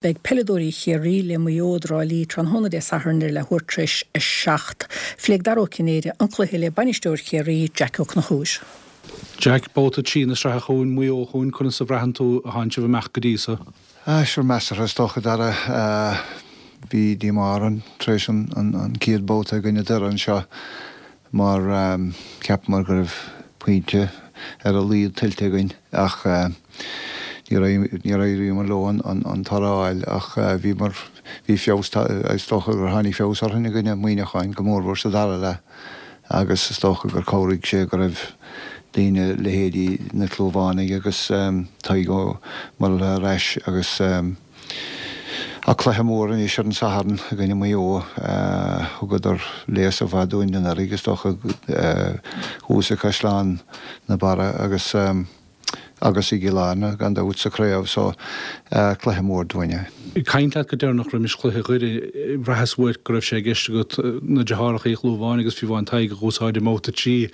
Beidh peileadóirí Chiarraí le Maigh Eo i dTrá Lí tráthnóna Dé Sathairn ar leathuair tar éis 7. Phléigh Dara Ó Cinnéide an cluiche le bainisteoir Chiarraí, Jack Ó Conchúir. Jack, Babhta 3 na sraithe chugainn, Maigh Eo chugainn, conas a bhraitheann tú a thánn sibh amach go dtí so? Ah, sure, measartha is dócha, Dara. Bhí díomá orainn tar éis an chéad babhta i gcoinne Doire anseo. mar cheapamar go raibh pointe ar a laghad tuillte againn ach níor éiríomar leo an toradh a fháil ach bhíomar, bhí feabhas, is dócha gur tháinig feabhas orainn i gcoinne Muineacháin, go mórmhór sa dara leath agus is dócha gur chabhraigh sé go raibh daoine, leithéidí na Clúmhánaigh agus Tadhg Ó Murchadha ar ais agus. Ach cluiche mór anois ar an Satharn i gcoinne Maigh Eo. Thugadar léasadh mhaith dúinn anuraidh, is dócha, thuas i gCaisleán na Barra agus agus i gCill Airne, gan dabht, sa chraobh. So, cluiche mór dúinn é. Ag caint leat go deireanach roimis chluiche Dhoire, bhraitheas uait go raibh sé i gceist agat na deartháireacha Uí Chlúmháin agus fiú amháin Tadhg a dh'úsáid i mbabhta 3.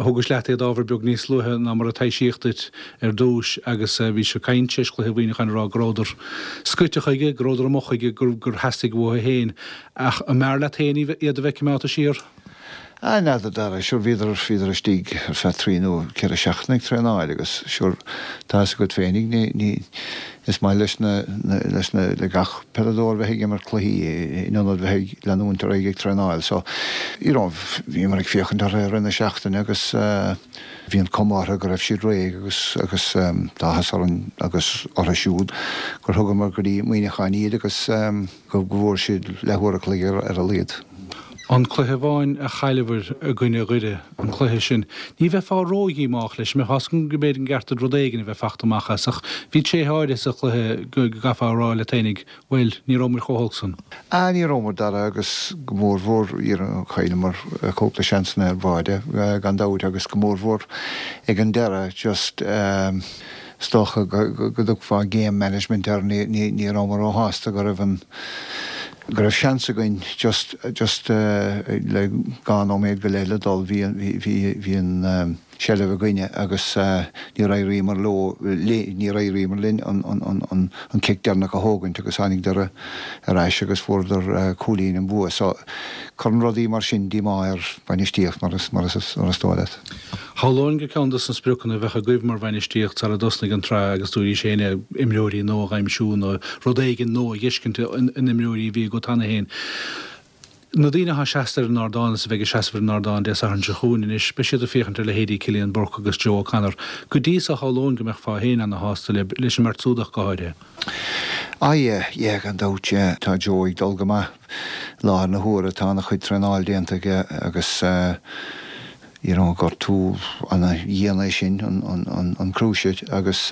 Thugais leat iad ábhar beag níos luaithe ná mar a taibhsíodh duit. ar dtúis agus bhís ag caint tar éis chluiche Mhuineacháin ag rá go rabhadar scoite chuige, go rabhadar amuigh chuige, gur theastaigh uathu féin. Ach an mb'fhearr leat féin iad a bheith coimeádta siar? Ah, n'fheadar, a Dhara, sure bhíodar, bhíodar istigh ar feadh trí nó ceithre seachtaine ag traenáil agus sure tá fhios agat féinig, ní, ní, is maith leis na, na, leis na, le gach peileadóir bheith ag imirt cluichí in ionad bheith ag leanúint ar aghaidh ag traenáil. So, you know, bhíomar ag féachaint orthu i rith na seachtaine agus eh, Bhí an cuma orthu go raibh siad réidh agus agus tá áthas orainn agus orthu siúd gur thugamar go dtí Muineachán iad agus go bhfuair siad leathuair a chloig ar a laghad. An cluiche amháin a chailleabhair i gcoinne Dhoire, an cluiche sin, ní bheifeá ródhíomách leis, mbeifeá go mb'fhéidir an gceart duit rud éigin a bheith fachta amach as ach bhí tréithe áirithe sa chluiche go gcaithfeá a rá leat fhéinig, Bhuel, ní rabhamar chomh holc san. Ah, ní rabhamar, Dara, agus go mórmhór, chailleamar cúpla seansanna ar bháide, gan dabht, agus go mórmhór ag an deireadh, just, is dócha go dtugfá game management air, ní rabhamar róshásta go raibh an, go raibh seans againn just, just le dhá nóiméad go leith le dul, bhí, bhí, bhí an, seilbh againne agus níor éiríomar leo, níor éiríomar linn an cic deireanach a thógaint agus tháinig Doire ar ais agus fuaireadar cúilín an bua. So, cuireann rudaí mar sin díomá ar bhainistíocht mar is dóigh leat. Shamhlóinn gur ceann dos na spriocanna a bheadh agaibh mar bhainistíocht sara dtosnaigh an tsraith agus dúraís féin é, imreoirí nua a dh'aimsiú nó rud éigin nua a dh'fheiscint in imreoirí a bhí agat cheana féin. Na daoine atá seasta ar an ardán is a bheidh ag seasamh ar an ardán Dé Sathairn seo chugainn anois, beidh siad ag féachaint ar leithéidí Cillian Burke agus Joe O'Connor. Go dtí so, shamhlóinn go mbeifeá féin ana-shásta le, leis an mbeirt súd ach go háirithe. Ah yeah, yeah, gan dabht, yeah. Tá Joe ag dul go maith i láthair na huaire, tá ana-chuid traenáil déanta aige agus eh, you know, gortú ana-dhian é sin, an cruciate, agus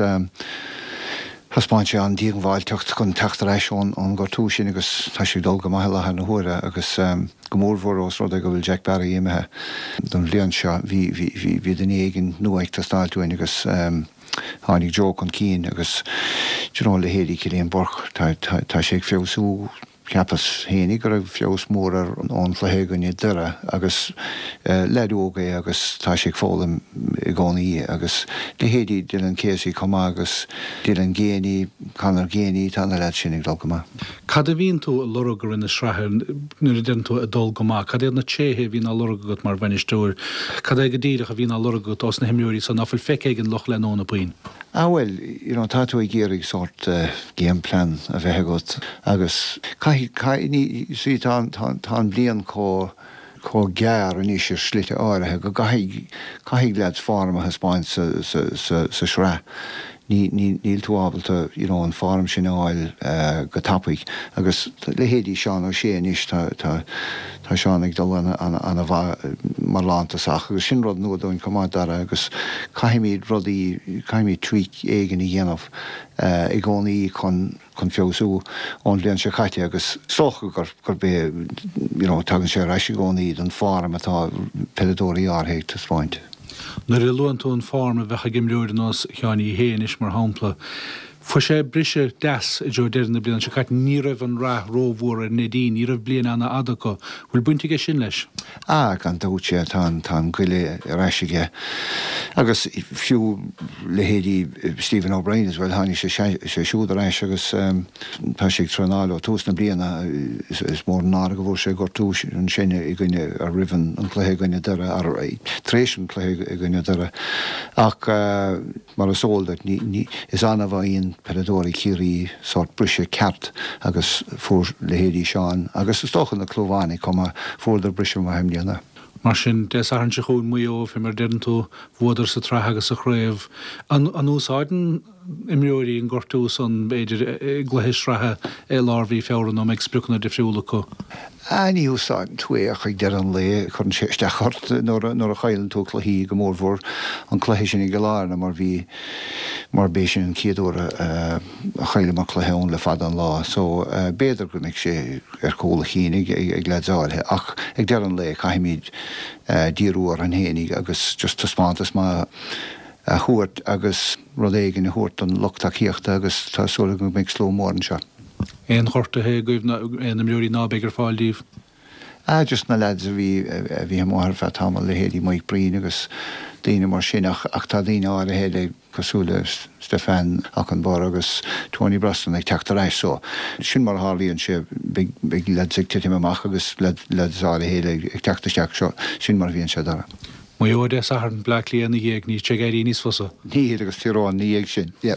thaispeáin sé an-díongbháilteacht chun teacht ar ais ón ngortú sin agus tá sé ag dul go maith i láthair na huaire agus go mórmhór ós rud é go bhfuil Jack Barry imithe don bhliain seo, bhí, bhí, bhí, bhí duine éigin nua ag teastáilt uainn agus tháinig Joe chun cinn agus, do you know, leithéidí Cillian Burke, tá, tá, tá sé ag feabhsú. Cheapas fhéinig go raibh feabhas mór air ón chluiche i gcoinne Doire agus leaid óg é agus tá sé ag foghlaim i gcónaí agus leithéidí Dylan Casey chomh maith agus Dylan Geaney, Conor Geaney, tá na leaids sin ag dul go maith. Cad a bhíonn tú ag lorg i rith na sraithe nuair a deireann tú ag dul go maith? Cad iad na tréithe a bhíonn á lorg agat mar bhainisteoir? Cad é go díreach a bhíonn á lorg agat ós na himreoirí so ná fuil feicthe ag an lucht leanúna puinn? Ah bhuel, you know, tá tú ag iarraidh sórt game plan a bheith agat agus caithfidh, caithfidh, ní, you see, tá, tá, tá an bhliain chomh, chomh gearr anois ar shlite áirithe go gcaithfidh, caithfidh leaids form a thaispeáint sa, sa, sa, sa sraith. Ní, ní, níl tú ábalta, you know, an form sin a fháil go tapaidh agus leithéidí Seán O'Shea anois, tá, tá, tá Seán ag dul ana, ana, ana mhaith mar lántosach agus sin rud nua dúinn chomh maith, Dara, agus caithfimid rudaí, caithfimid tweak éigin a dhéanamh i gcónaí chun, chun feabhsú ón bhliain seo caite agus is dócha gur, gurb é, you know, tagann sé ar ais i gcónaí don form atá peileadóirí áirithe ag taispeáint. Nuair a luann tú an form a bheadh ag imreoir ar nós Sheáin Uí Shé anois mar shampla. Fuair sé briseadh deas i dtreo deireadh na bliana seo caite. Ní raibh an rath rómhór ar Neidín, ní raibh bliain ana-fhada acu. Bhfuil baint aige sin leis? Ah, gan dabht, yeah, tá an, tá an goile ar ais aige. Agus fiú leithéidí Stephen O'Brien as well, tháinig sé, sé siúd ar ais agus tá sé ag traenáil ó tús na bliana. Is mór an náire go bhfuair sé gortú ansin i gcoinne, roimh an cluiche i gcoinne Doire, tar éis an cluiche i gcoinne Doire. Ach. Mar is eol duit, is annamh a fhaigheann peileadóirí Chiarraí sórt briseadh ceart agus fuair leithéidí Seán agus is dócha na Clúmhánaigh chomh maith, fuaireadar briseadh maith i mbliana. Mar sin, Dé Sathairn seo chugainn, Maigh Eo, fé mar a deireann tú, bhuadar sa tsraith agus sa chraobh. An úsáideann imreoirí an gortú san, b'fhéidir, i gcluiche sraithe i lár mhí Feabhra nó an mbeidh spriocanna difriúla acu? Ah, ní úsáideann tú é ach ag deireadh an lae cuireann sé isteach ort nuair a chailleann tú cluichí, go mórmhór an cluiche sin i gCill Airne mar bhí, mar b'é sin an chéad uair a chailleamar cluiche ann le fada an lá. So, b'fhéidir go mbeidh sé ar chúl a chinn ag, ag leaids áirithe ach ag deireadh an lae caithfimid díriú orainn fhéinig agus just taispeántas maith a thabhairt agus rud éigin a thabhairt don lucht tacaíochta agus tá súil agam go mbeidh slua mór anseo. Aon ghortuithe agaibh nó aon imreoirí ná beidh ar fáil díbh? Ah just na lads a bhí a bhí amuigh ar feadh tamaill, leithéidí Mike Breen agus daoine mar sin ach ach tá daoine áirithe eile cosúil le Stefan Okunbor agus Tony Brosnan ag teacht ar ais so sin mar a tharlaíonn sé beidh beidh lads ag titim amach agus lads áirithe eile ag teacht isteach so sin mar a bhíonn sé Dara. Maigh Eo Dé Sathairn, Bleá Cliath ina dhiaidh, níl sé ag éirí níos fusa. Níl agus Tír Eoghain ina dhiaidh sin, yeah.